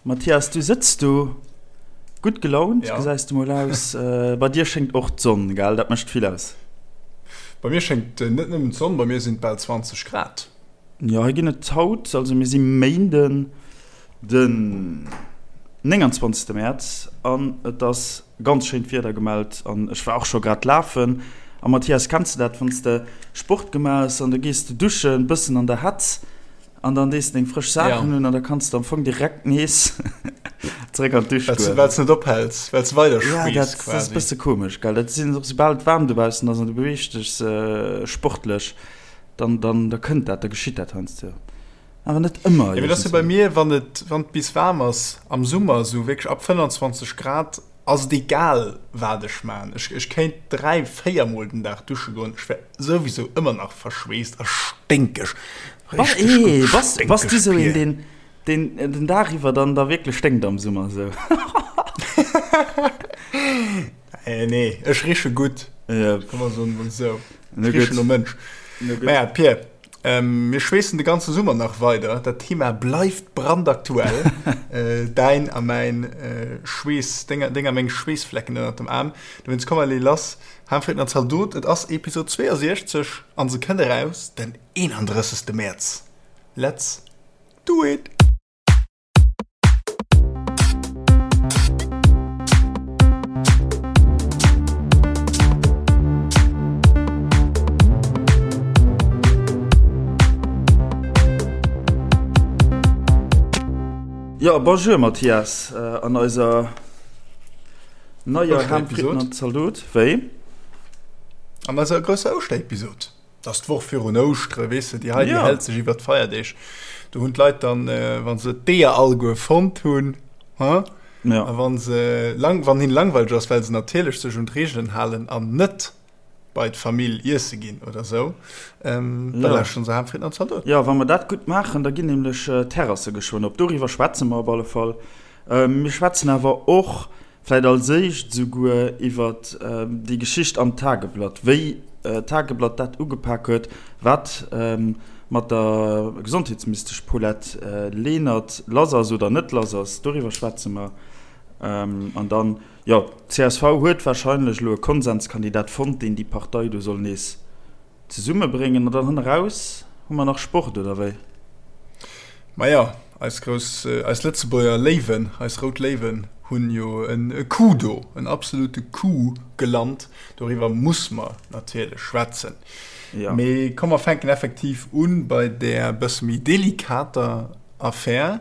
Mathias, du sëtz do gutt gelaunt, ja. gesäis du mol aus. Äh, bei dir schéngt och d'Sonn, gell? Dat mécht vill aus. Bei mir schéngt äh, net nëmmen d'Sonn, bei mir sinn et bal 20 Grad. Jo, hei ginn et haut, also mir si Méinden den 29. Mäerz an et ass ganz schéint Wieder gemellt an ech war och scho grad lafen. A Mathias, kenns de dat, wann s de Sport gemaach hues an du gees de duschen, bëssen an der Hetz, An dann dees de deng frësch Saachen un an da kanns de am Fong direkt nees zeréck an d'Dusch goen. Well s net ophäls, well s weider schweess quasi. Ja, dat ass e bësse komesch, gell. Dat sinn och, soubal et waarm dobaussen ass an du beweegs dech sportlech, dann, dann, da kënnt dat, da geschitt dat heiansdo. Awer net ëmmer. Jo, mee dat ass jo bei mir, wann et, wann et bis waarm ass am Summer, esou wierklech ab 25 Grad, Ass et egal waat ech maan, ech ech kéint 3, 4 mol den Daag dusche goen, ech wär souwisou ëmmer nach verschweesst a sténkeg, richteg gutt sténkeg Bass du sou een deen deen den Daag iwwer dann da wierklech sténkt am Summer sou? Nee, ech riche gutt, komm mer soen emol sou, ech richen no Mënsch. Maja Pir, Mir schweessen de ganze Summer nach weider. Dat Thema bleift brandaktuell. Däin a mäin Schweess, deng a meng Schweessflecken ënnert dem Aarm. Dowéinst komm allez lass, Ham, Fritten an Zaldot. Et ass Episod 62 an se kënnt eraus den 31. Mäerz. Let's do it! Jo, bonjour Mathias, an eiser neier Ham, Fritten an Zaldot. Wéi? An eiser grousser Ouschterepisod. Et ass d'Woch virun Ouschtere, weess de, déi hei, déi hält sech iwwer d'Feierdeeg. Do hunn d'Leit dann, wa se d'Eeër alleguer fonnt hunn, ha, a wa se lang, wann hinne langweileg ass, well se natierlech sech un d'Reegelen halen an net bei d'Famill iesse ginn oder esou, da lauschteren se Ham, Fritten an Zaldot. Jo, wa mer dat gutt maachen, da ginn nämlech d'Terrasse geschwënn op. Doriwwer schwätze mer op alle Fall. Mir schwätzen awer och Vläit als éischt esouguer iwwert déi Geschicht am Tageblatt, wéi d'Tageblatt dat ugepak huet, wat mat der Gesondheetsministesch Paulette Lenert lass ass oder net lass ass, doriwwer schwätze mer. An dann, jo, d'CSV huet warscheinlech elo e Konsenskandidat fonnt, deen déi Partei do soll nees Zesummebréngen an dann hanneraus hu mer nach Sport, oder wéi? Maja, eis grouss, eis Lëtzebuerger Léiwen, eis rout Léiwen hunn jo e Coup do, en absolute Coup gelant. Doriwwer muss mer natierlech schwätzen. Ja. Mee komm mer fänken effektiv un bei där bësse méi delikater Affär.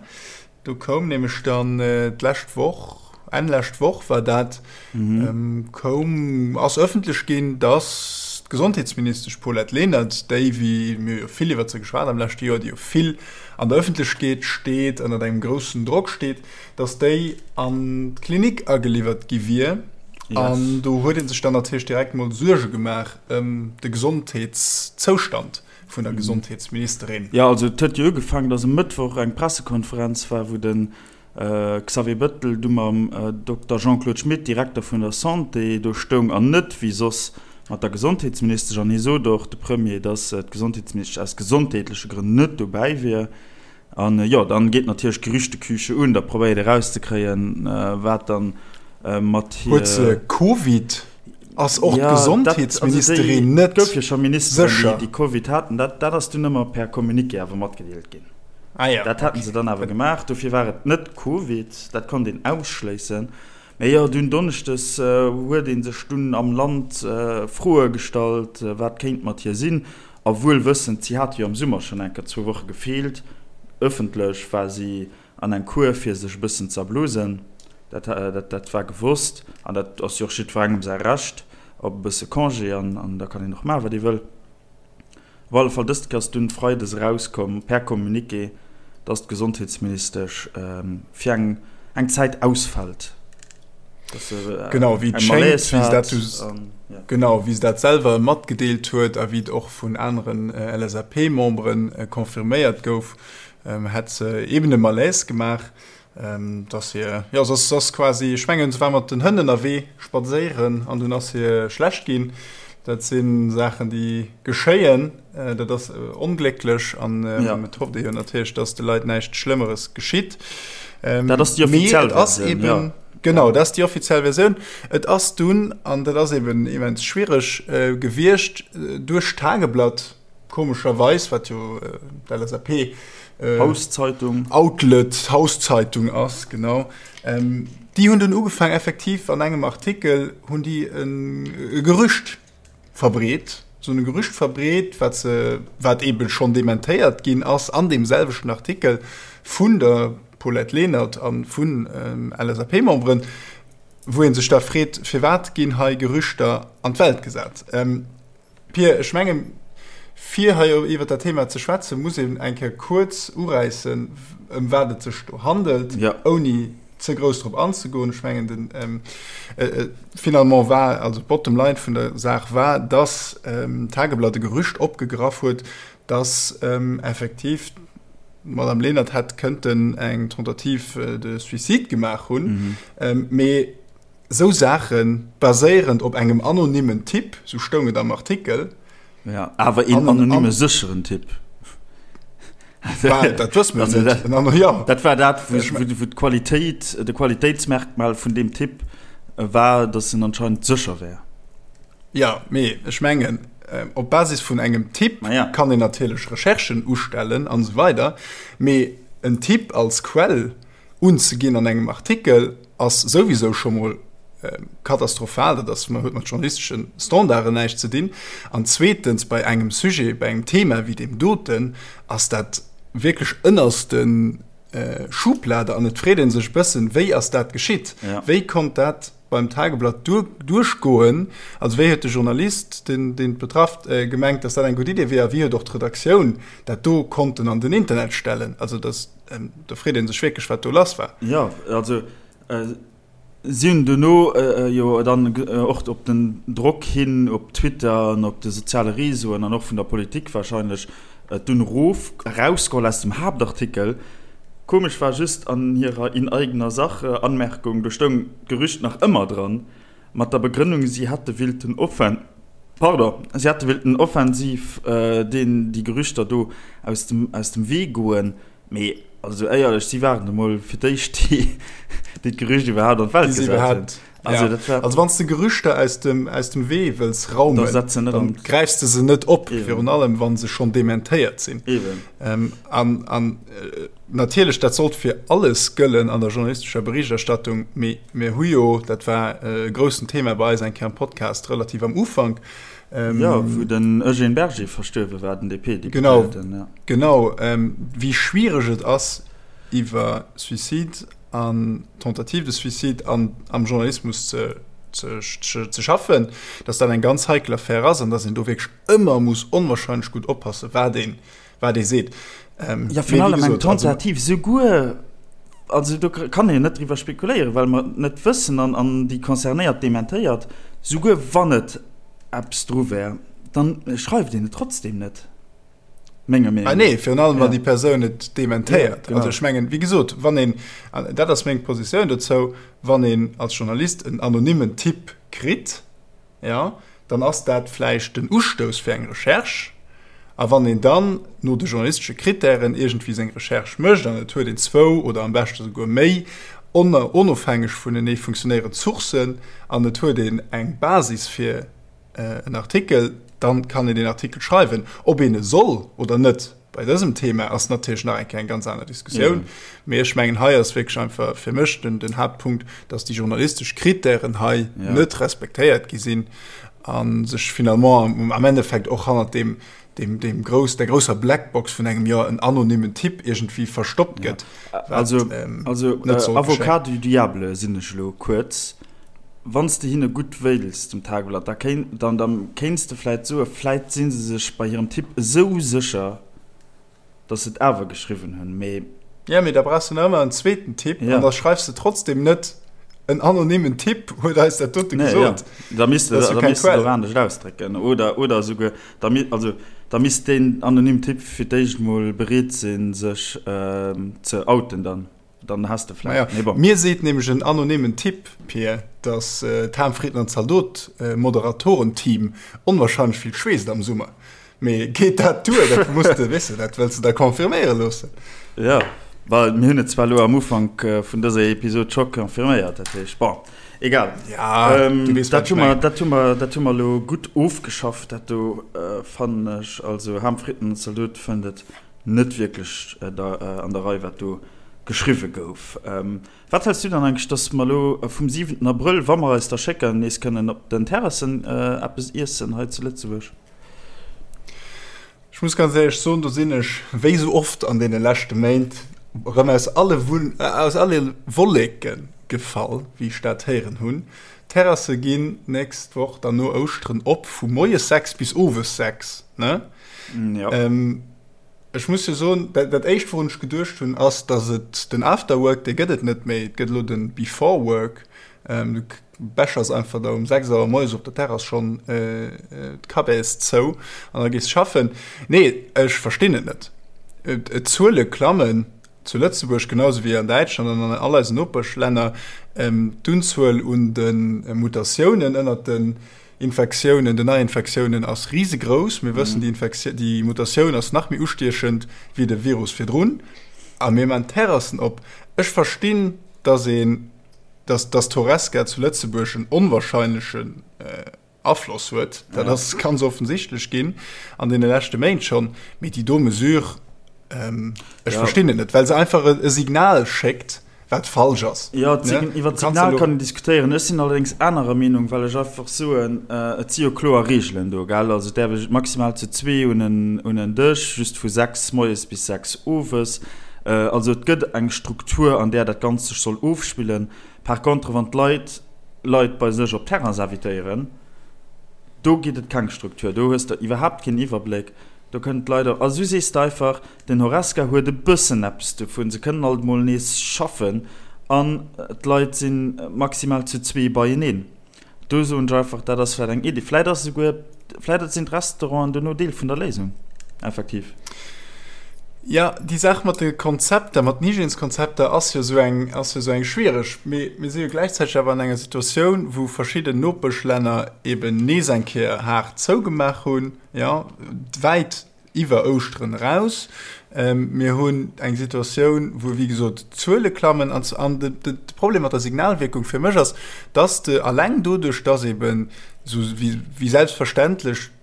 Do koum nämlech dann d'lescht Woch, Enn lescht Woch war dat, koum, ass ëffentlech ginn, datt d'Gesondheetsministesch Paulette Lenert, déi, wéi mir jo vill iwwert se geschwat am leschte Joer, déi jo vill an der Ëffentlechkeet steet, ënnert engem groussen Drock steet, datt déi an d'Klinik ageliwwert gi wier. An do huet ee sech dann natierlech direkt mol Suerge gemaach ëm de Gesondheetszoustand. vun der Gesondheetsministerin. Jo, also et huet jo ugefaangen, datt e Mëttwoch eng Pressekonferenz war, wou de Xavier Bettel du mam Dokter Jean-Claude Schmit, Direkter vun der Santé, do stoung an net wéi soss mat der Gesondheetsministesch. An hie sot och, de Premier, datt d'Gesondheetsministesch aus gesondheetleche Grënn net dobäi wier. An jo, dann geet natierlech d'Gerüchteküche un, da probéiert ee rauszekréien, wat dann mat hir. Huet se Covid? Ass och d'Gesondheetsministerin net sécher? Et gouf jo scho Ministeren, déi Covid haten. Dat ass dunn ëmmer per Communiqué awer matgedeelt ginn. Dat haten se dann awer gemaach. Dofir war et net Covid, dat konnt een ausschléissen. Mee jo, dunn donneschdes huet ee sech dunn am Land Froe gestallt, wat kéint mat hir sinn. A wuel wëssend, si hat jo am Summer schonn eng Kéier zwou Woche gefeelt, ëffentlech war si an eng Kur fir sech e bëssen z'erblusen, dat dat war gewosst an dat ass jo och jiddwerengem säi Recht op e bësse Congé an da kann een och maachen, wat ee wëll. Op alle Fall, dëst Kéier ass dunn freides erauskomm per Communiqué, dass d'Gesondheetsministesch fir eng eng Zäit ausfält. Genau, wéi et schéngt, wéi se dat genau, wéi se dat selwer matgedeelt huet a wéi et och vun aneren LSAP-Membere confirméiert gouf, hätt se eben e Malaise gemaach, dass hir, jo, se ass, se ass quasi, ech mengen, se war mat den Hënn ënnerwee spadséieren an dunn ass hir schlecht ginn. Dat si Saachen, déi geschéien. Dat ass onglécklech an et hofft ee jo natierlech, dass de Leit näischt Schlëmmeres geschitt. Dat ass déi offiziell Versioun, jo. Genau, dat ass déi offiziell Versioun. Et ass dunn, an dat ass eben immens schwiereg gewiescht, duerch d'Tageblatt, komescherweis, wat jo d'LSAP Hauszeitung. Outlet, Hauszeitung ass, genau, déi hunn dunn ugefaangen, effektiv an engem Artikel hunn déi e Gerücht verbreet, esou e Gerücht verbreet, wat se, wat eebe schonn dementéiert ginn ass an deem selwechten Artikel vun der Paulette Lenert a vun LSAP-Memberen, wou ee sech da freet, Firwat ginn hei Gerüchter an d'Welt gesat? Pir, ech mengen, fir hei iwwer dat Thema ze schwätzen, muss een eng Kéier kuerz uräissen, ëm wat et sech do handelt, ouni ze grouss drop anzegoen. Ech mengen, den, finalement war, also d'Bottom line vun der Saach war, dass d'Tageblatt e Gerücht opgegraff huet, dass effektiv d'Madame Lenert hätt kënnten eng Tentative de suicide gemaach hunn. Mee Esou Saache baséierend op engem anonymmen Tipp, sou stoung et am Artikel. Ja, awer een anonyme sécheren Tipp. Dat wësse mer net. Jo. Dat war dat, wou d'Qualitéit, de Qualitéitsmerkmal vun deem Tipp war, datt en anscheinend sécher wär. Jo, mee ech mengen, op Basis vun engem Tipp kann een natierlech Recherchen ustellen an esou weider, mee en Tipp als Quell unzeginn an engem Artikel ass souwisou scho mol katastrophal, dat ass huet mat journalistesche Standarden näischt ze dinn. An zweetens, bei engem Sujet, bei engem Thema wéi deem doten ass dat wierklech ënnerste Schublade an et freet ee sech e bëssen, wéi ass dat geschitt? Wéi konnt dat beim Tageblatt duerchgoen? Also wéi huet de Journalist, deen et betrafft, gemengt, datt dat eng gutt Idee wier a wéi huet och d'Redaktioun dat do konnten an den Internet stellen? Also dat Do freet ee sech wierklech, wat do lass war. Jo, also si hunn dono jo dann och op den Drock hin op Twitter an op de soziale Reseauen an och vun der Politik warscheinlech et dunn erof, erausgeholl aus dem Haaptartikel. Komesch war just an hirer In eigener Sache Anmerkung, do stoung d'Gerücht nach ëmmer dran, mat der Begrënnung, si hätte willten offen, pardon, si hätte willten offensiv deen déi Gerüchter do aus dem, aus dem Wee goen. Mee also éierlech, si waren emol fir d'éischt déi, déi d'Gerücht iwwerhaapt an d'Welt gesat hunn. Also, dat war. Also wann s de Gerüchter aus dem, aus dem Wee wëlls raumen, da setz se net an. Gräifs de se net op, virun allem wa se schonn dementéiert sinn. Eben. An, an natierlech, dat sollt fir alles gëllen an der journalistescher Berichterstattung, mee mir hu jo, dat war e groussen Thema bei eis eng Kéier am Podcast, relativ am Ufank, Jo, wou den Eugène Berger verstuerwe war, den DP-Deputéierten. Genau, genau, wéi schwiereg et ass, iwwer Suicide an Tentative de suicide an am Journalismus ze, ze, ze schaffen, dass dat eng ganz heikel Affär ass an dass een do wierklech ëmmer muss onwahrscheinlech gutt oppassen, wat een, wat ee seet. Ähm, ja, virun allem eng Tentative, souguer, also do kann een net driwwer spekuléieren, well mer et net wëssen an, an déi Concernéiert dementéiert, souguer wann et eppes dru wär, dann schreift een et trotzdem net, menger Meenung no. Ah nee, virun allem wann déi Persoun et dementéiert. Ja, genau. Also ech mengen, wéi gesot, wann een, an dat ass meng Positioun dozou, wann een als Journalist en anonymen Tipp kritt, jo, dann ass dat vläicht den Ustouss fir eng Recherche. A wann een dann no de journalistesche Krittären iergendwéi seng Recherche mécht an et huet een zwou oder am beschte souguer méi onofhängeg vunenee funktionéierend Sourcen an et huet een eng Basis fir en Artikel, dann kann een deen Artikel schreiwen. Ob een e soll oder net bei dësem Thema ass natierlech nach eng Kéier eng ganz aner Diskussioun. Mee ech mengen, hei ass wierklech einfach fir mech den, den Haaptpunkt, dass déi journalistesch Krittären hei ja. net respektéiert gi sinn a sech finalement am, am Endeffekt och hannert dem, dem, dem grouss, der grousser Blackbox vun engem jo en anonymen Tipp iergendwéi verstoppt gëtt. Ja. Also, ähm, also äh, Avocat du Diable sinn ech elo kuerz. Wann s de hinne gutt wéils, dem Tageblatt, da kéint, dann, dann kéints de vläit soen, vläit si se sech bei hirem Tipp esou sécher, dass se et awer geschriwwen hunn, mee. Ja, mee da brauchs de nach ëmmer en zweeten Tipp an da schreifs de trotzdem net, en anonymen Tipp huet eis dat dote gesot. Da misst de dat misst de och anescht ausdrécken oder, oder esouguer, da mi, also da misst deen anonymen Tipp fir d'éischt mol bereet sinn, sech ze outen dann. Dann has de vläicht, mee bon. Mir seet nämlech en anonymen Tipp, Pir, dass d'Harmfrieden an Zaldot Moderatorenteam onwahrscheinlech vill schweesst am Summer. Mee geet dat duer? Dat muss de, weess de, dat wëlls de da confirméiere loossen. Jo. Well mir hunn et zwar elo am Ufank vun dëser Episod scho confirméiert, dat heescht, bon, egal. Ja, du weess, wat ech mengen. Dat hu mer, dat hu mer elo gutt ofgeschafft, dat do, fannen ech. Also Ham, Fritten an Zaldot fënnt et net wierklech an der Rei, wat do geschriwwe gouf. Wat häls du dann eigentlech, dass mer elo vum siwenten Abrëll, wa mer eis da schécken, nees kënnen op den Terrassen eppes iessen hei zu Lëtzebuerg? Ech muss ganz éierlech soen, do sinn ech, wéi esou oft an deene leschte Méint, erëm aus alle aus alle Wolleke gefall, wéi ech dat héieren hunn. D'Terrasse ginn d'nächst Woch dann no Ouschteren op, vu moies 6 bis owes 6, ne? Jo. Ech muss jo soen, dat éischt, wourun ech geduecht hunn, ass, datt et den Afterwork, dee gëtt et net méi, et gëtt elo de Beforework. Du bechers einfach da um 6 Auer moies op der Terrass schonn d'Cabes zou an da gees schaffen. Nee, ech verstinn et net. D'Zuele klammen zu Lëtzebuerg genau sou wéi an Däitschland an an all eisen Nopeschlänner. D'Unzuel un de Mutatiounen ënnert den Infektiounen, den Neiinfektiounen ass risegrouss. Mir wëssen, déi Mutatioun ass nach méi ustiechend wéi de Virus virdrun. A mir man d'Terrassen op. Ech verstinn, datt een dass dass d'Horesca zu Lëtzebuerg en onwahrscheinlechen Afloss huet, dat ass ganz offensichtlech ginn an deene leschte Méint schonn. Mee déi do Mesure, ech verstinn et net, well se einfach e Signal schéckt, wat falsch ass. Jo, iwwer d'Signal kann een diskutéieren. Ech sinn allerdéngs anerer Meenung, well ech einfach soen, et si jo kloer Reegelen do, gell? Also et däerf ee maximal zu zwee un en Dësch, just vu 6 moies bis 6 owes. Also et gëtt eng Struktur, an där dat Ganzt sech soll ofspillen. Par contre, wann d'Leit Leit bei sech op d'Terrains invitéieren, do gitt et keng Struktur, do hues de iwwerhaapt keen Iwwerbléck, do kënnen d'Leit och, also du sees de einfach, den Horesca huet e bëssen eppes dovun, se kënnen alt emol nees schaffen an d'Leit si maximal zu zwee beieneen. Do soen ech einfach, dat ass vläicht eng Iddi. Vläicht ass esouguer, vläicht sinn d'Restauranten dono Deel vun der Léisung, effektiv. Jo, déi Saach mat de Konzepter, mat den Hygièneskonzepter ass jo esou eng, ass jo esou eng schwiereg. Mee mir si jo gläichzäiteg awer an enger Situatioun, wou verschidden Nopeschlänner eben nees eng Kéier haart zougemaach hunn, jo, wäit iwwer Ouschteren eraus. Mir hunn eng Situatioun, wou, wéi gesot, d'Zuele klammen. An de Problem mat der Signalwierkung fir mech ass, dass de alleng doduerch, dass eben esou wéi selbstverständlech,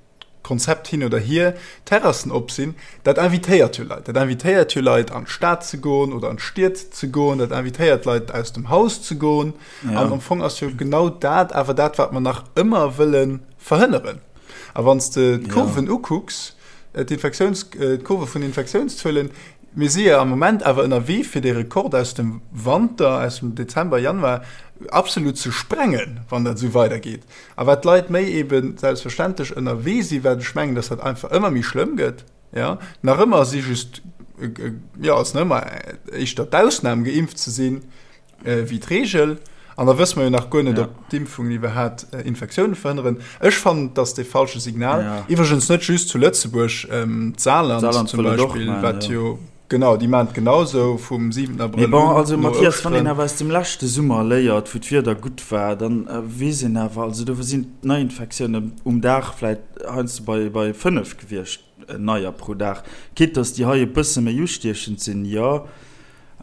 Konzept hin oder hier, Terrassen op sinn, dat invitéiert jo Leit. Dat invitéiert jo Leit, an d'Stad ze goen oder an d'Stied ze goen. Dat invitéiert Leit, aus dem Haus ze goen. An am Fong ass jo genau dat awer dat, wat mer nach ëmmer wëlle verhënneren. A wann s de d'Kurven ukucks, d'Infektiouns, d'Kurve vun den Infektiounszuelen, mir si jo am Moment awer ënnerwee fir dee Rekord aus dem Wanter, aus dem Dezember, Januar absolut ze sprengen, wann dat esou weidergeet. A wat d'Leit méi ebe selbstverständlech ënnerwee sinn, wat ech mengen, datt dat einfach ëmmer méi schlëmm gëtt, jo, nach ëmmer si just, jo, ass nach ëmmer éischter d'Ausnam geimpft ze sinn, wéi d'Reegel. An da wësse mer jo nach guer net, ob d'Impfungen iwwerhaapt Infektioune verhënneren. Ech fannen, et ass dee falsche Signal. Iwwregens net just zu Lëtzebuerg, d'Saarland zum Beispill, wat jo, genau, déi maachen et genausou vum 7 Abrëll un. Mee bon, also Mathias, wann een awer aus dem leschte Summer léiert, wou d'Wieder gutt war, da weess een awer, also do sinn d'Neiinfektiounen um Dag vläicht heiansdo bei 5 gewiescht, neier pro Dag. Quitte dass déi hei e bësse méi ustiechend sinn, jo.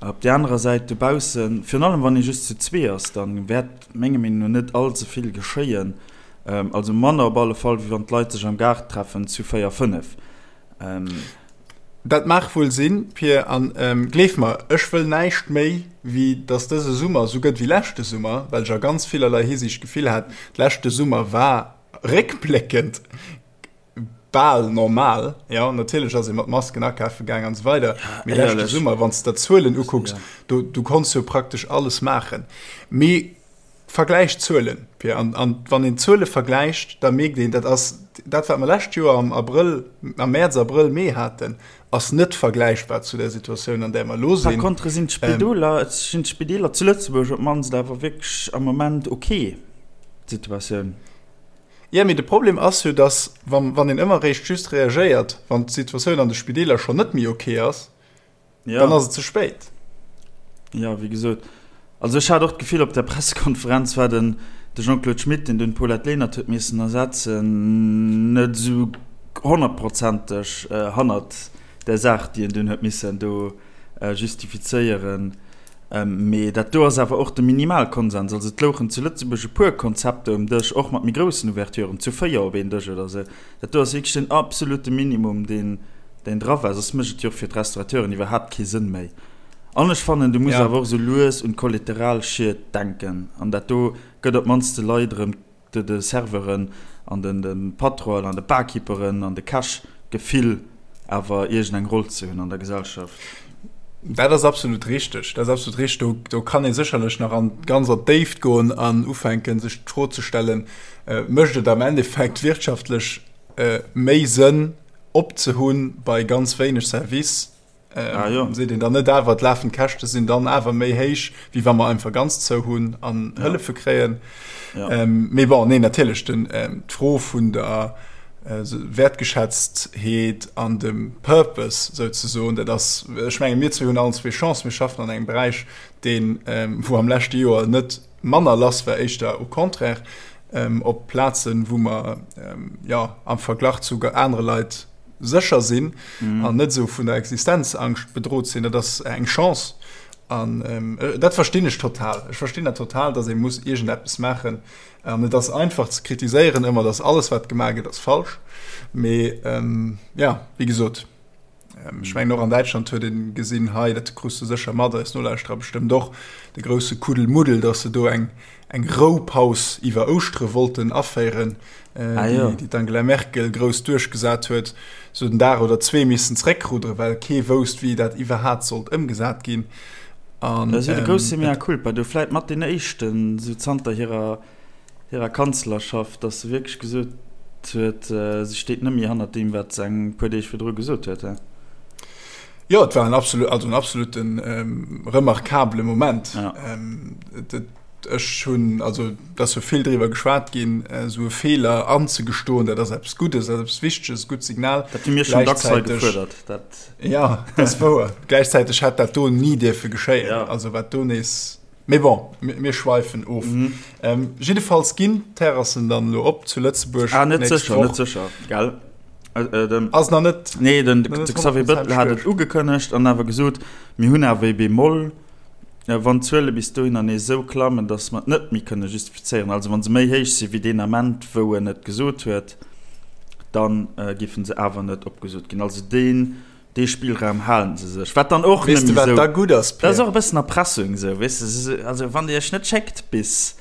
Op där anerer Säit dobaussen, virun allem wann ee just zu zwee ass, da wäert menger Meenung no net all ze vill geschéien. Also manner op alle Fall, wéi wann d'Leit sech am Gaart treffen zu véier, fënnef. Dat mag wuel sinn, Pir, an gleef mer, ech wëll näischt méi, wéi datt dëse Summer esou gëtt wéi leschte Summer, well ech a ganz villerlei Hisiicht d'Gefill hat, leschte Summer war réckbléckend bal normal, jo, natierlech ass ee mat Masken akafe gaang an esou weider, mee leschte Summer, wann s de der d'Zuelen ukucks, do du konns jo praktesch alles maachen. Mee vergläich d'Zuelen, Pia, an, an wann een d'Zuele vergläicht, da mierkt een, dat ass dat, wat mer lescht Joer am Abrëll, am Mäerz, Abrëll, Mee haten, ass net vergläichbar zu der Situatioun, an där mer elo sinn. Par contre sinn d'Spidoler, sinn d'Spideeler zu Lëtzebuerg op d'mannst awer wierklech am Moment ok, d'Situatioun. Jo, mee de Problem ass jo, dass, wann een ëmmer eréischt just reagéiert, wann d'Situatioun an de Spideeler schonn net méi ok ass, dann ass et ze spéit. Jo, wéi gesot, also ech hat och d'Gefill, op der Pressekonferenz war den de Jean-Claude Schmit, deen dunn d'Paulette Lenert huet missen ersetzen, net esou honnertprozenteg hannert där Saach, déi en dunn huet missen do. Justifizéieren. Mee dat do ass awer och de Minimalkonsens. Also et louchen zu Lëtzebuerg e puer Konzepter um Dësch, och mat méi groussen Ouverturen, zu 4 op een Dësch oder esou. Dat do ass wierklech den absolute Minimum, deen deen dra war. Soss mécht et jo och fir d'Restaurateuren iwwerhaapt kee Sënn méi. An ech fannen, du muss awer och esou lues un d'Kollateralschied denken. An dat do gëtt op d'mannst de Leit erëm de Serveuren an de Patronen an de Barkeeperen an de Käch d'Gefill awer iergend eng Roll ze hunn an der Gesellschaft. Dat ass absolut richteg. Dat ass absolut richteg. Do, do kann ee sécherlech nach an, ganz an d'Déift goen an ufänken, sech d'Fro ze stellen, Mécht et am Endeffekt wirtschaftlech méi Sënn opzehunn bei ganz wéineg Service, Ah, jo. Seet een dann net awer, d'lafend Käschte sinn dann awer méi héich, wéi wa mer einfach ganz zou hunn an ja. Hëllefe kréien. Ja. Ähm, mee bon, nee, natierlech, den, ähm, d'Fro vun der äh, Wertgeschätztheet an dem Purpose souzesoen, dat ass, ech menge mir zwee hunn allen zwee Chance, mir schaffen an engem Beräich, deen, ähm, wou am leschte Joer net manner lass war, éischter au contraire, ähm, op Plazen, wou mer ähm, ja, am Verglach zu anere Leit sécher sinn mhm. an net sou vun der Existenzangscht bedroht sinn, dat ass eng Chance. An ähm, äh, dat verstinn ech total. Ech verstinn dat total, dass ee muss iergendeppes maachen. An et ass einfach ze kritiséieren ëmmer, dass alles wat gemaach gëtt ass falsch. Mee ähm, ja, wéi gesot, ähm, ech mengen och an Däitschland huet een gesinn hei, dat krus du sécher mat, eis Nolauschterer bestëmmt och, de grousse Kuddelmuddel, dass se do eng eng Roupaus iwwer Ouschtere wollten aféieren, ah, ja. déi d'Angela Merkel grouss duerchgesat huet, sou den Dag oder zwee missen zréckruddere, well kee wousst, wéi dat iwwerhat sollt ëmgesat ginn. An, dat ähm, grousse mea culpa, do vläit mat den éischten, sou zanter hirer, hirer Kanzlerschaft, dass se wierklech gesot huet, äh, se steet net méi hannert deem, wat se eng puer Deeg virdru gesot huet. He? Jo, et war en absolut, also en absoluten ähm, remarkabele Moment. Ja. Ähm, ech hunn, also et ass jo vill driwwer geschwat ginn, esou e Feeler anzegestoen, dat ass eppes Guddes, dat ass eppes Wichteges, e gutt Signal. Dat hu mir schonn dacks hei gefuerdert. Dat. Ja, dat ass wouer. Gläichzäiteg hätt dat do ni dierfe geschéien. Ja. Also wat do nees. Mee bon, mir schweifen of. Mhm. Ähm, jiddefalls ginn d'Terrassen dann elo op zu Lëtzebuerg. Ah, net sécher, net sécher, gell? Äh, äh, den, Ass nach net. Nee, den, de Xavier Bëttel hat et ugekënnegt an awer gesot, mir hunn awer e Bémol, äh, wann d'Zuele bis dohinner nees esou klammen, datt mer et net méi kënne justifizéieren, also wa se méi héich si wéi deen Ament, wou en et gesot huet, dann äh, géife se awer net opgesot ginn. Also deen, dee Spillraum halen se sech, wat dann och Weess de, wat da gutt ass, Pierre? Dat ass och e bëssen Erpressung esou, weess de, also wann Dir Iech net schéckt bis,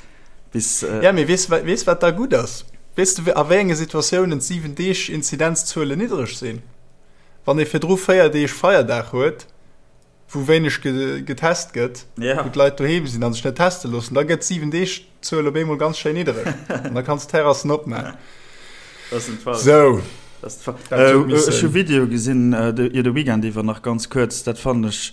bis. Ja, mee weess, weess wat da gutt ass? Weess de, a wéi enge Situatiounen d'siwen Deeg Inzidenzzuelen niddreg sinn? Wann ee virdru 4 Deeg Feierdag huet, wou wéineg getest gëtt, wou d'Leit doheem sinn a sech net teste loossen, da gëtt d'siwen Deeg Zuel op eemol ganz schéin niddereg an da kanns d'Terrassen opmaachen. Sou. Ech hu Video gesinn de de Weekend iwwer nach ganz kuerz, dat fannen ech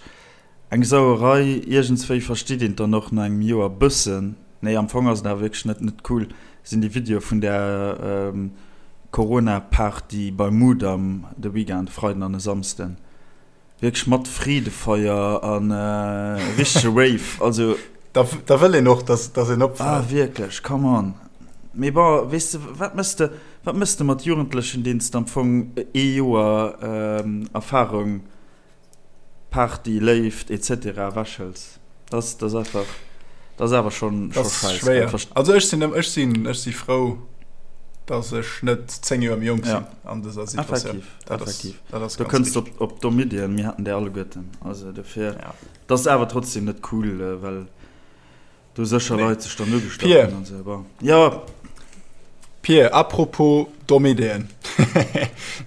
eng Sauerei. Iergendswéi versteet een et dann och no engem Joer bëssen. Nee, am Fong ass et awer wierklech net net cool, sinn déi Videoe vun där Corona-Party beim Mudam de Weekend, e Freiden an e Samsden. Wierklech mat Freedefeier an richtege Rave, also. Da wëll een och, dass een opfält. Ah wierklech, come on. Mee bon, weess de, wat mëss de, wat mëss de mat Jugendlechen, deenen s de am Fong ee Joer Erfarung, Party, Léift etc. Ewechhëls? Dat ass einfach, dat ass awer schonn scheiss. Dat ass schwéier. Also ech sinn, ech sinn, ech si frou, dass ech net 10 Joer méi jonk sinn an dëser Situatioun. Effektiv. Dat Effektiv. Ass, dat ass du kënns op, op domm Iddien, mir haten déi alleguerten. Also dofir, ja. Dat ass awer trotzdem net cool, äh, well do sécher nee. Leit sech dann ugestach hunn an sou. Bon. Ja. Pir, apropos domm Iddien.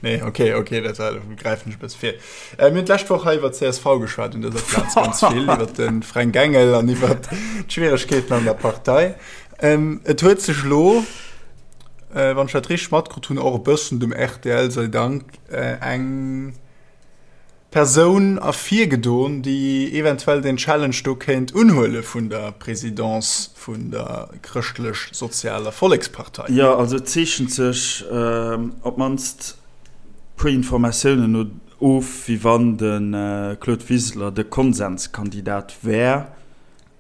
nee, okay, okay, dat war, gräifen ech e bësse vir. Äh, mir hunn d'lescht Woch hei iwwer CSV geschwat un dëser Plaz ganz vill, iwwer de Fränk Engel an iwwer d'Schwieregkeeten an der Partei. Ähm, et huet sech lo, wann ech dat richteg matkrut hunn, och e bëssen dem rtl sei Dank, eng Persoun ervirgedoen, déi eventuell den Challenge do kéint unhuele vun der Présidence vun der Chrëschtlech-Sozialer Vollekspartei. Jo, also et zeechent sech op d'mannst puer Informatiounen no of, wéi wann de Claude Wiseler de Konsenskandidat wär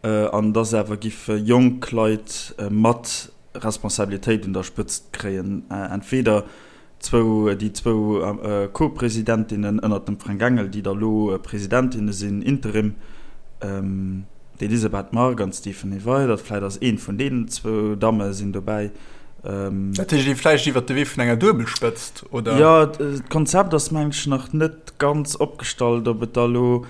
an dass awer giffe jonk Leit mat Responsabilitéit un der Spëtzt kréien, entweder. Zwou, déi zwou Co-Presidentinnen ënnert dem Fränk Engel, déi da lo Presidentinne sinn, Interim, d'Elisabeth Margue an d'Stéphanie Weydert. Vläicht ass eent vun deenen zwou Damme sinn dobäi. Dat heescht ee vläicht iwwert de Wee vun enger Duebelspëtzt, oder? Jo, d'Konzept ass meng ech nach net ganz opgestallt, ob et da lo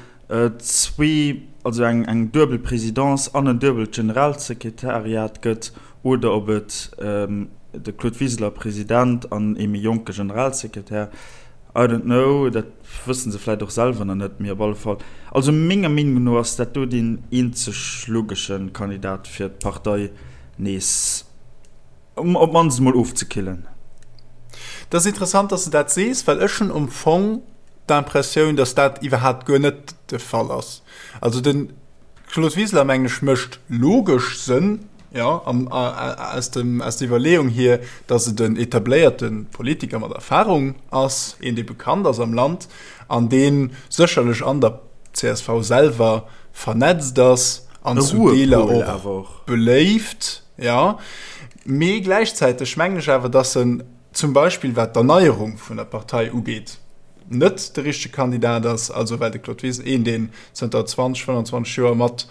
zwee, also eng eng duebel Présidence an en duebelt Generalsekretariat gëtt oder ob et de Claude Wiseler President an ee méi jonke Generalsekretär, I don't know, dat wësse se vläit och selwer nach net, mee op alle Fall, also menger Meenung no ass dat do deen eenzeg logesche Kandidat fir d'Partei nees op d'mannst emol ofzekillen. Dat ass interessant, dass de dat sees, well ech hunn am Fong d'Impressioun, dass dat iwwerhaapt guer net de Fall ass. Also den. Claude Wiseler, mengen ech, mécht logesch Sënn, jo, an aus dem, aus der Iwwerleeung hier, datt et en etabléierte Politiker mat Erfahrung ass, een, dee bekannt ass am Land an dee sécherlech an der csv selwer vernetzt ass an zu Deeler och beléift, jo. Mee gläichzäiteg mengen ech awer, datt en zum Beispill wat d'Erneierung vun der Partei ugeet, net de richtege Kandidat ass, also well de Claude Wiseler, een deen zënter 20, 25 Joer mat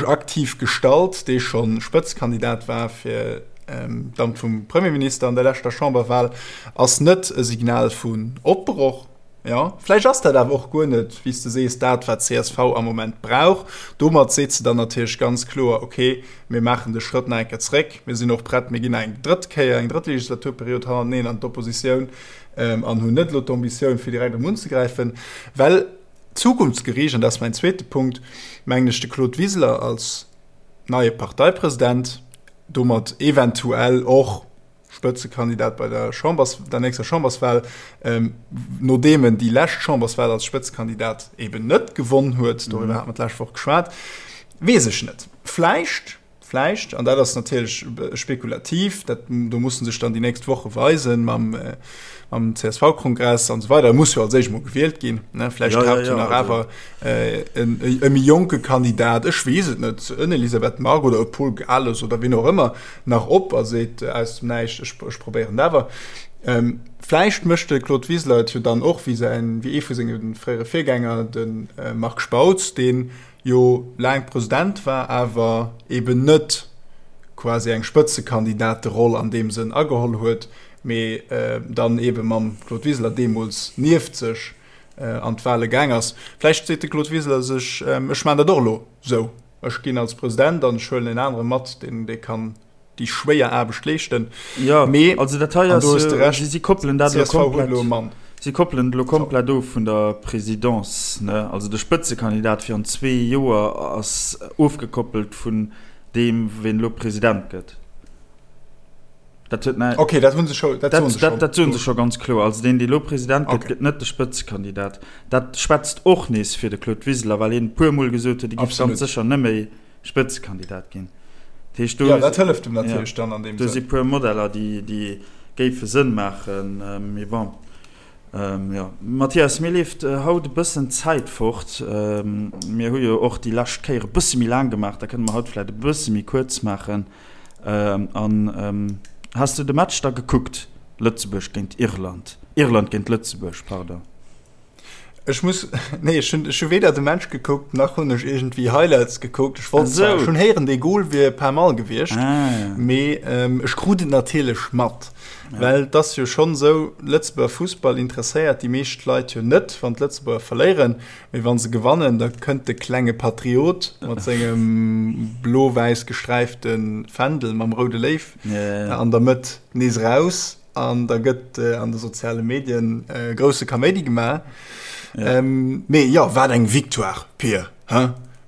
aktiv gestalt, dee scho Spëtzekandidat war fir d'Amt vum Premierminister an der leschter Chamberwahl, ass net e Signal vun Opbroch. Jo, vläicht ass dat awer och guer net, wéi s de sees, dat, wat csv am Moment brauch. Domat seet se dann natierlech ganz kloer, Okay, mir maachen de Schrëtt nach eng Kéier zréck, mir sinn och prett, mir ginn nach eng drëtt Kéier, eng drëtt Legislaturperiod hannerteneen an d'Oppositioun an hunn net elo d'Ambitioun, fir direkt erëm unzegräifen. Well zukunftsgeriicht, an dat ass mäin zweete Punkt, mengen ech, de Claude Wiseler als neie Parteipresident, domat eventuell och, Spëtzekandidat bei der Chambers, der nächster Chamberswahl, nodeem en déi lescht Chamberswahl als Spëtzekandidat eben net gewonn huet, doriwwer hate mer d'lescht Woch geschwat, weess ech net. Vläicht, vläicht, an dat ass natierlech spekulativ, dat, do musse sech dann déi nächst Woche weisen mam, mam CSV-Kongress an esou weider, e muss jo als éischt emol gewielt ginn, ne, vläicht taucht jo nach awer e méi jonke Kandidat, ech weess et net, en Elisabeth Margue oder e Paul Gales oder wien och ëmmer, nach op a seet aus dem Näischt, ech, ech probéieren et awer. Ähm, vläicht mécht de Claude Wiseler et jo dann och wéi säin, wéi ee vu senge fréiere Virgänger, de Marc Spautz, dee jo laang President war, awer eben net quasi eng Spëtzekandidateroll an deem Sënn ageholl huet, mee dann ebe mam Claude Wiseler deemools nieft sech an d'Wale gaang ass. Vläicht seet de Claude Wiseler sech, ech maachen dat och elo sou. Ech ginn als President an ech huelen en anere mat, deen dee kann déi schwéier Aarbecht leeschten. Jo, mee, also dat hei ass jo, si, si koppelen dat elo komplett, elo e Mann. Si koppelen et elo komplett of vun der Présidence, ne? Also de Spëtzekandidat fir an zwee Joer ass ofgekoppelt vun deem, ween elo President gëtt. Dat huet näi. Okay, dat hunn se scho, dat soen se schonn. Dat soen se scho ganz kloer. Also deen, dee lo President gëtt, gëtt net de Spëtzekandidat. Dat schwätzt och nees fir de Claude Wiseler, well hien e puermol gesot huet, hie géif ganz sécher net méi Spëtzekandidat ginn. Dat heescht, do. Jo, dat hëlleft em natierlech dann an deem Sënn. Do si puer Modeller, déi, déi géife Sënn maachen. Mee bon. Jo, Mathias, mir leeft haut e bëssen d'Zäit fort. Mir hu jo och déi lescht Kéier e bësse méi laang gemaach, da kënne mer haut vläicht e bësse méi kuerz maachen. An has de de Match da gekuckt, Lëtzebuerg géint Irland, Irland géint Lëtzebuerg, pardon? Ech muss, nee, ech hunn, ech hu weder de Match gekuckt, nach hunn ech iergendwéi Highlights gekuckt. Ech wollt zwar, ech hunn héieren, dee Goal wier pas mal gewiescht, mee ech krut et natierlech mat, well et ass jo schonn esou, Lëtzebuerger Fussball interesséiert déi meescht Leit jo net, wann d'Lëtzebuerger verléieren. Mee wann se gewannen, da kënnt de klenge Patriot mat sengem blo-wäiss gesträifte Fändel mam roude Léiw an der Mëtt nees eraus an da gëtt an de soziale Medien grousse Kaméidi gemaach. Mee jo, wat eng Victoire, Pir, he?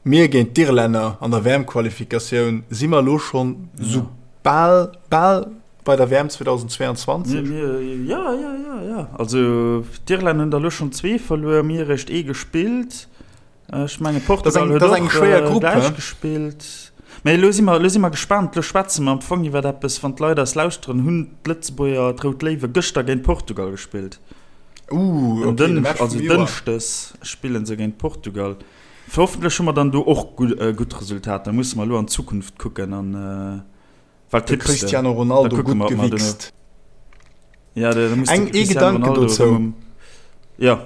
Mir géint d'Irlänner an der WM-Qualifikatioun, si mer elo schonn sou bal, bal Bei der WM 2022? Mir, mir, ja, ja, ja, ja. Also d'Irlänner hunn der elo schonn zwee verluer, mir eréischt ee gespillt. Ech menge Portugal huet och eng schwéier Grupp gläich gespillt. Mä elo si mer, elo si mer gespaant. Elo schwätze mer am Fong iwwer eppes, wann d'Leit eis lauschteren, hunn d'Lëtzebuerger, d'Rout Léiwe gëschter géint Portugal gespillt. Uh, okay, de Match also Dënschdes spille se géint Portugal. Hoffentlech hu mer dann do och gutt Resultater. Musse mer elo an d'Zukunft kucken an. Wat de Cristiano Ronaldo gutt gewichst. Ja, da muss Eng ee Gedanken dozou. Ja.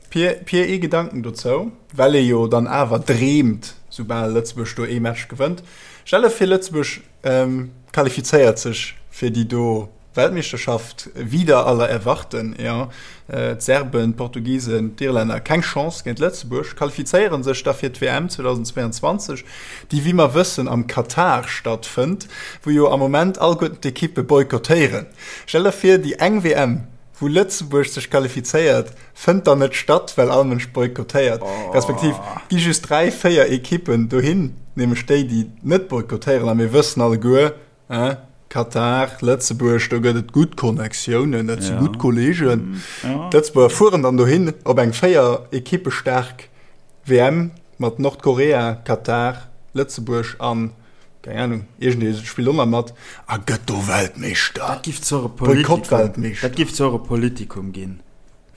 Pir, Pir ee Gedanken dozou, well ee jo dann awer dreemt, soubal Lëtzebuerg do ee Match gewënnt. Stell der vir Lëtzebuerg ähm, qualifizéiert sech fir déi do Weltmeeschterschaft, wider aller Erwarten, jo. D'Serben, d'Portugisen, d'Irlänner, keng Chance géint Lëtzebuerg, qualifizéiere sech da fir d'WM 2022, déi wéi mer wëssen am Katar stattfënnt, wou jo am Moment alleguerten d'Ekippe boykottéieren. Stell der vir, déi eng WM, wou Lëtzebuerg sech qualifizéiert, fënnt dann net statt, well all Mënsch boykottéiert, respektiv gi just 3, 4 Ekippen dohin, nämlech déi, déi net boykottéieren. A mir wëssen alleguer, hein, Katar, Lëtzebuerg, do gëtt et gutt Connectiounen, dat si gutt Kolleegen. D'Lëtzebuerger fueren dann dohin op eng 4 Ekippe staark WM mat Nordkorea, Katar, Lëtzebuerg an Keng Ahnung, iergendee spillt och nach mat a gëtt do Weltmeeschter. Dat giff zwar e Politikum, Boykott-Weltmeeschter. dat giff zwar e Politikum ginn,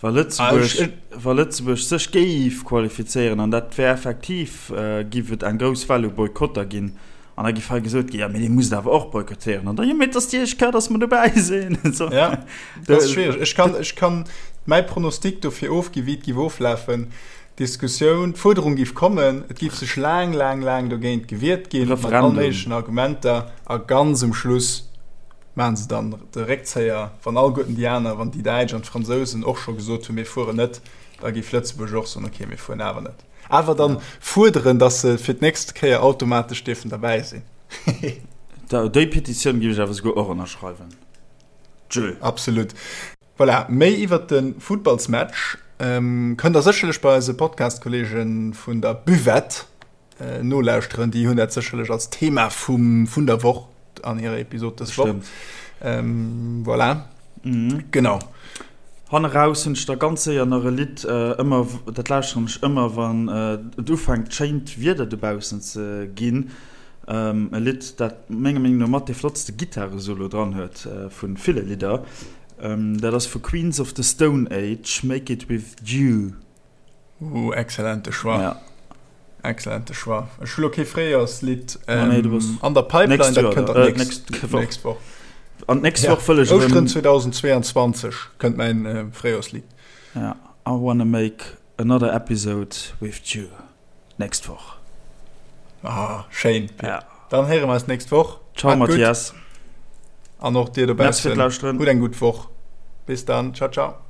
wa Lëtzebuerg, wa Lëtzebuerg sech géif qualifizéieren, an dat wär effektiv, giff et eng grouss Well u Boykotter ginn, an da giff hei gesot ginn, jo mee dir musst awer och boykottéieren, an da, jo mee et ass déi éischt Kéier, datt mer dobäi sinn. So. Ja, dat ass schwiereg. Ech kann, ech kann mäi Pronostic dofir ofginn, wéi et giff oflafen. D'Diskussioun, d'Fuerderung géif kommen, et géif sech laang, laang, laang dogéint gewiert ginn, mat all méiglechen Argumenter, a ganz um Schluss maache se dann de Réckzéier, wann alleguerten déi aner, wann déi Däitsch an d'Fransousen och scho gesot hunn, mir fueren net, da géif Lëtzebuerg och soen, okay, mir fueren awer net. Awer dann fuerderen, datt se fir d'nächst Kéier automatesch dierfen derbäi sinn. Déi Petitioun géif ech awer souguer och ënnerschreiwen. Tschö. Absolut. Voilà, méi iwwert de Futtballsmatch kënnt der sécherlech bei eise Podcast-Kolleege vun der Buvette nolauschteren. Déi hunn dat sécherlech als Thema vum, vun der Woch an hirer Episod dës Woch. Voilà. Mhm. Genau. Hanne raus hunn ech da ganz séier nach e Lidd, ëmmer, dat lauschteren ech ëmmer, wann et ufänkt schéint Wieder dobaussen ze ginn. E Lidd, dat menger Meenung no mat dee flottste Gittaresolo dran huet vu ville Lidder. Dat ass vu Queens of the Stone Age, Make It With You. Ooh, excellente Choix. Ja. Excellente Choix. Ech hu lo kee Fréijoerslidd ähm, nee, du bass an der Pipeline, nächst dat Joer, kënnt äh, dann nächst, nächst Woch. nächst Woch. An d'nächst Ja. Woch wëll ech Ouschteren erëm 2022 kënnt mäin äh, Fréijoerslidd. Ja, I wanna make another episode with you nächst Woch. Ah, schéin. Ja. Dann héiere mer eis nächst Woch. Ciao, Maat gutt. Mathias. An och dir Merci fir dobaussen. d'Lauschteren. Hutt eng gutt Woch. Bis dann. Ciao, ciao.